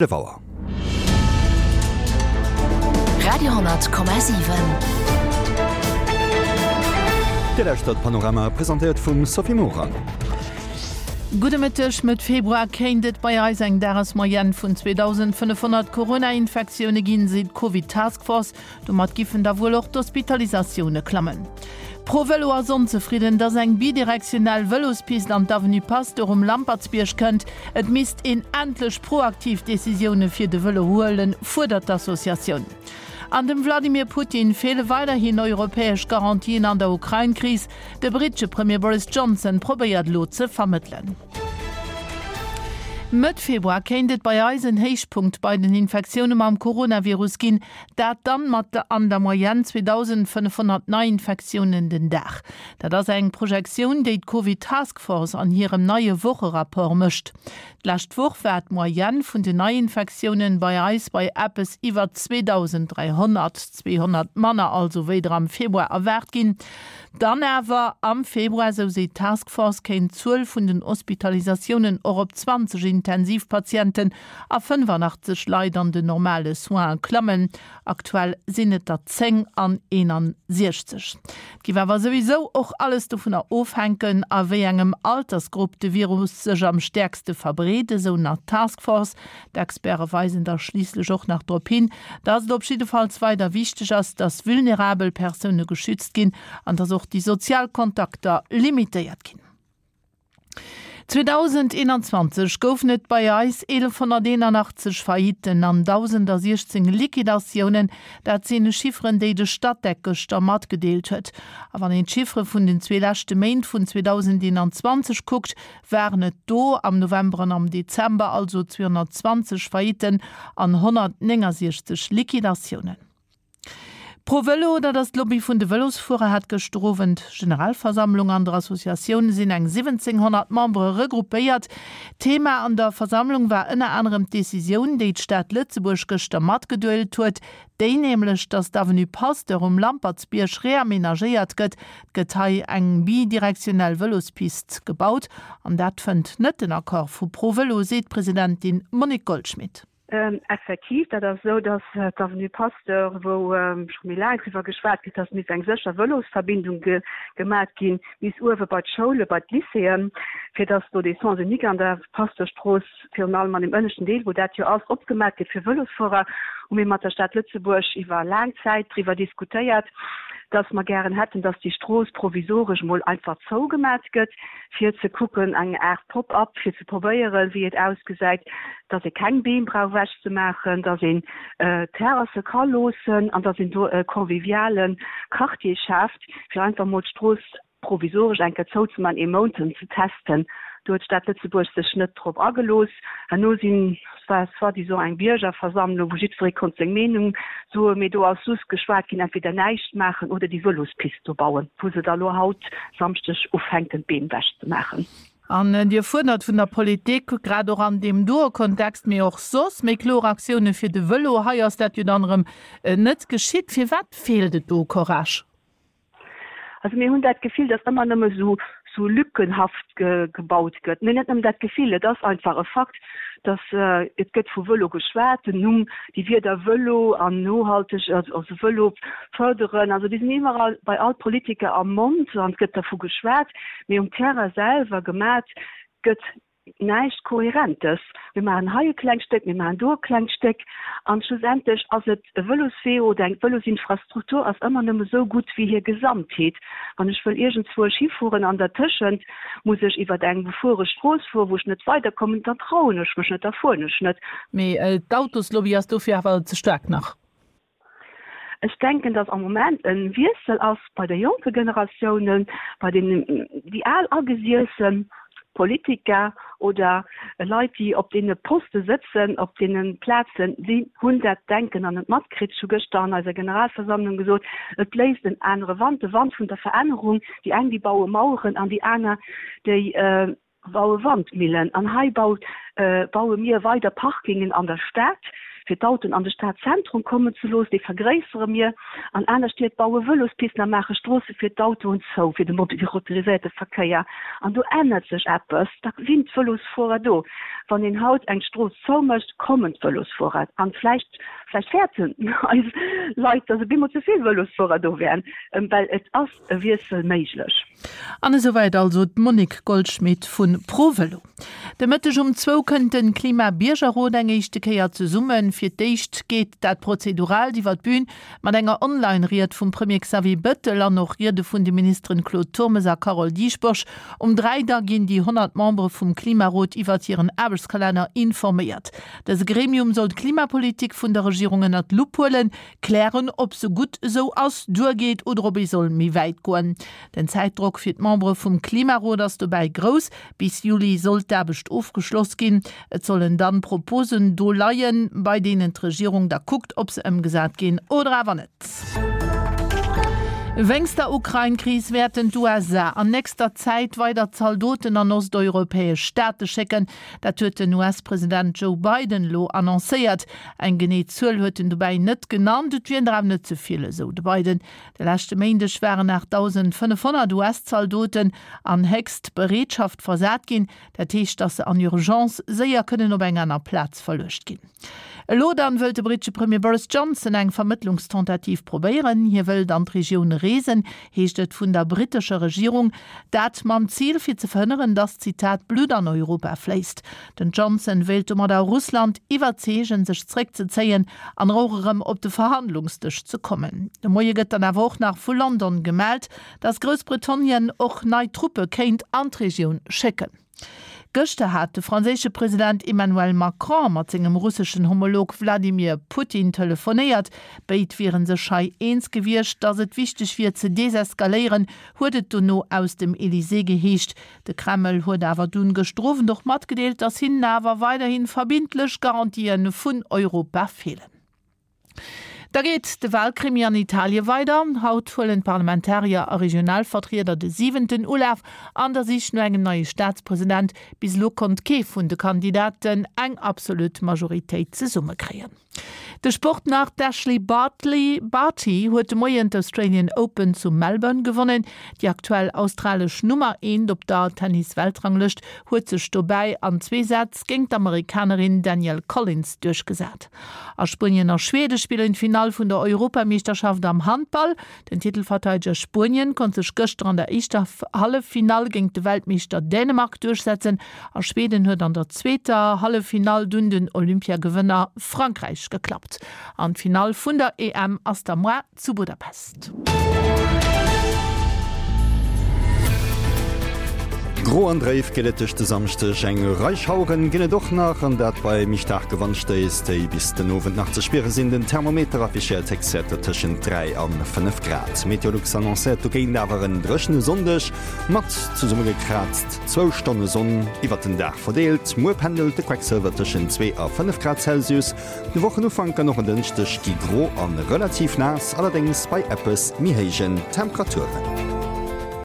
11 Auer. Radio,7. Dir lauschtert Panorama, presentéiert vum Sophie Morang. Gudde Mëtteg, Mëtt Februar kéint et bei eis eng Dagesmoyenne vun 2.500 Corona-Infektioune ginn, seet d'Covid Task Force. Domat giffen da wuel och d'Hospitalisatioune klammen. ProVelo ass onzefridden, dass eng bidirektionell Vëlospist an d'Avenue Pasteur um Lampertsbierg kënnt. Et misst een endlech proaktiv Decisioune fir de Vëlo huelen, fuerdert d'Associatioun. An dem Wladimir Putin feele weiderhin europäesch Garantien an der Ukrain-Kris. De brittesche Premier Boris Johnson probéiert elo ze vermëttelen. Mëtt Februar kéint et bei eis en Héichpunkt bei den Infektioune mam Coronavirus ginn. Dat dann mat an der Moyenne 2.500 Neiinfektiounen den Dag. Dat ass eng Projektioun, déi d'Covid Task Force an hirem neie Wocherapport mécht. D'lescht Woch war d'Moyenne vun den Neiinfektiounen bei eis bei eppes iwwer 2.300, 200 manner also wéi der am Februar erwaart ginn. Dann awer am Februar, esou seet d'Task Force, kéint d'Zuel vun den Hospitalisatiounen och op 20 Intensivpatienten a 85 Leit an den normale Soinen klammen. Aktuell sinn et der 10 an 61. Et géif awer souwisou och alles dovunner ofhänken, a wéi engem Altersgrupp de Virus sech am stäerkste verbreet, esou nach d'Task Force. D'Experte weisen da schliisslech och nach drop hin, datt et op jiddefalls weider wichteg ass, datt vulnerabel Persoune geschützt ginn an datt och déi sozial Kontakter limitéiert ginn. 2021 goufen et bei eis 1.181 Faillitten an 1.016 Liquidatiounen. Dat sinn Chifferen, déi de Statec gëschter matgedeelt huet. A wann een d'Chiffere vun den zwee leschte Méint vun 2021 kuckt, waren et do am November an am Dezember also 220 Faillitten an 169 Liquidatiounen. ProVelo, dat ass d'Lobby vun de Vëlosfuerer, hat gëschter Owend Generalversammlung. An der Associatioun sinn eng 1.700 Membere regroupéiert. Thema an der Versammlung war ënner anerem d'Decisioun, déi d'Stad Lëtzebuerg gëschter matgeduelt huet, déi nämlech, datt d'Avenue Pasteur um Lampertsbierg reamenagéiert gëtt. Et gëtt hei eng bidirektionell Vëlospist gebaut an dat fënnt net den Accord vu ProVelo, seet d'Presidentin Monique Goldschmit. Effektiv, dat ass esou, datt d'Avenue Pasteur, wou scho méi laang driwwer geschwat gëtt, datt misst eng sécher Vëlosverbindung gemat ginn bis uewe bei d'Schoule, bei d'Lycéeën, fir datt do dee Sens unique an der Pasteurstrooss, virun allem an deem ënneschten Deel, wou dat jo ass, opgemat gëtt fir Vëlosfuerer, hu mir mat der Stad Lëtzebuerg iwwer laang Zäit driwwer diskutéiert, datt mer gären hätten, datt déi Strooss provisoresch emol einfach zougemat gëtt, fir ze kucken, eng Aart Pop-up, fir ze probéieren, wéi et ausgesäit, dass ee keng Beem brauch ewechzemaachen, dass een Terrasse ka loossen an dass een do e conviviale Quartier schaaft, fir einfach emol d'Strooss provisoresch eng Kéier zouzemaachen, ee Mount ze testen. Do huet d'Stad Lëtzebuerg sech net drop agelooss. Herno sinn, et war soi-disant eng Biergerversammlung, wou jiddweree konnt seng Meenung soen, mee do ass just geschwat ginn, entweder näischt maachen oder déi Vëlospist do bauen, wou se da lo haut Samschdeg ufänken d'Beem ewechzemaachen. An Dir fuerdert vun der Politik, grad och an deem doe Kontext, mee och soss, méi kloer Aktioune fir de Vëlo. Hei ass dat jo dann erëm net geschitt. Firwat feelt et do u Courage? Also mir hunn dat Gefill, datt ëmmer nëmme sou sou lückenhaft gebaut gëtt. Mee net nëmmen dat Gefill, et ass einfach e Fakt, datt et gëtt vu Vëlo geschwat, den Numm, déi Wierder Vëlo an nohalteg, also Vëlo fërderen, also déi sinn iwwerall bei all Politiker am Mond an et gëtt dervu geschwat, mee um Terrain selwer gemat gëtt näischt Kohärentes. Mir maachen hei e klengt Stéck, mir maachen do e klengt Stéck an schlussendlech ass et e Vëloswee oder eng Vëlosinfrastruktur ass ëmmer nëmme esou gutt wéi hir Gesamtheet. Wann ech wëll iergendzwousch hifueren an dertëschent muss ech iwwer eng befuere Strooss fueren, wou ech net weiderkommen, dann trauen ech mech net, da fueren ech net. Mee d'Autoslobby ass dofir awer ze staark nach. Ech denken, datt am Moment e Wiessel ass bei de jonke Generatiounen, bei deenen, déi al agesiesse Politiker oder Leit, déi op deene Poste sëtzen, op deene Plazen, déi hunn dat Denken nach net matkritt. Ech hu gëschter an eiser Generalversammlung gesot, et bléist en anere Wand, de Wand vun der Verännerung. Déi eng, déi baue Maueren an déi aner, déi baue Wandmillen an hei baut, baue mir weider Parkingen an der Stad. fir d'Autoen an de Stadzentrum kommen ze loossen, déi vergréissere mir. An aner Stied baue Vëlospisten a maache Stroosse fir d'Autoen zou, fir de motoriséierte Verkéier. An do ännert sech eppes, da sinn d'Vëlosfuerer do. Wann een haut eng Strooss zoumécht, kommen d'Vëlosfuerer. An vläicht, vläicht fäerten eis Leit, datt op eemol ze vill Vëlosfuerer do wären, well et ass e Wiessel méiglech. An esouwäit also d'Monique Goldschmit vu ProVelo. De Mëtteg um zwou kënnt de Klima-Biergerrot eng éischte Kéier zesummen. Fir d'éischt geet dat Prozeduraalt iwwer d'Bün mat enger Online-Ried vum Premier Xavier Bettel an och Riede vun de Ministeren Claude Turmes a Carole Dieschbourg. Um 3 da ginn déi 100 Membere vum Klimarot iwwert hiren Aarbechtskalenner informéiert. Dëse Gremium soll d'Klimapolitik vun der Regierung ënnert d'Lupp huelen, Klären, ob se gutt esou ass, duergeet oder ob ee soll méi wäit goen. Den Zäitdrock fir d'Membere vum Klimarot ass dobäi grouss. Bis Juli soll d'Aarbecht ofgeschloss ginn. Et sollen dann Proposen do leien, bei deenen d'Regierung da kuckt, ob se ëmgesat ginn oder awer net. Wéinst der Ukrain-Kris wäerten d'USA an nächster Zäit weider Zaldoten an osteuropäesch Staate schécken. Dat huet den US-President Joe Biden elo annoncéiert. Eng genee Zuel huet en dobäi net genannt. Et wieren der awer net ze vill, esou de Biden. De leschte Méindeg waren 8.500 US-Zaldoten an héchst Bereetschaft versat ginn. Dat heescht, datt se an Urgence séier kënnen op eng aner Plaz verluecht ginn. Elo dann wëllt de brittesche Premier Boris Johnson eng Vermëttlungstentativ probéieren. Hie wëllt an d'Regioun reesen, heescht et vun der brittescher Regierung. Dat mam Zil fir ze verhënneren, datt, Zitat, Blutt an Europa fléisst. Den Johnson wéilt domadder Russland iwwerzeegen, sech zréckzezéien an och erëm op de Verhandlungsdësch ze kommen. De Moie gëtt dann awer och nach vu London gemellt, datt Groussbritannien och nei Truppe kéint an d'Regioun schécken. Gëschter hat de franséische President Emmanuel Macron mat sengem russeschen Homolog Wladimir Putin telefonéiert. Béid wiere sech hei eens gewiescht, datt et wichteg wier ze deseskaléieren, huet et dono aus dem Elysée geheescht. De Kreml huet awer dunn gëschter Owend och matgedeelt, datt hinnen awer weiderhi verbindlech Garantië vun Europa feelen. Da geet de Walkrimi an Italie weider. Haut huelen d'Parlamentarier a Regionalvertrieder de siwenten Ulaf an der Sich no engem neie Staatspresident. Bis elo konnt kee vun de Kandidaten eng absolut Majoritéit zesummekréien. De Sport nach, D'Ashleigh Bartley Barty huet de Moien d'Australian Open zu Melbourne gewonnen. Déi aktuell australesch Nummer eent op der Tennis-Weltranglëscht huet sech dobäi an zwee Sätz géint d'Amerikanerin Danielle Collins duerchgesat. A Spuenien a Schwede spillen d'Finall vun der Europameeschterschaft am Handball. Den Titelverteideger Spuenien konnt sech gëschter an der éischter Halleffinall géint de Weltmeeschter Dänemark duerchsetzen a Schweden huet an der zweeter Halleffinall dunn den Olympiagewënner Frankräich geklappt. An d'Finall vun der EM ass da moar zu Budapest. Gro an dréif geet et duerch de Samschdeg, eng Rei Schaueren ginn et och nach, an dat bei méi staarke Wandstéiss, déi bis den Owend nach ze spiere sinn. Den Thermometer affichéiert Héchstwäerter tëschent 3 an 5 Grad. Meteolux annoncéiert dogéint awer en dréchene Sonndeg mat zesummegekraazt zwou Stonne Sonn iwwert den Dag verdeelt. Muer pendelt de Quecksëlwer tëschent 2 a 5 Grad Celsius. De Wochenufank an och en Dënschdeg gi gro a relativ naass, allerdéngs bei eppes méi héijen Temperaturen.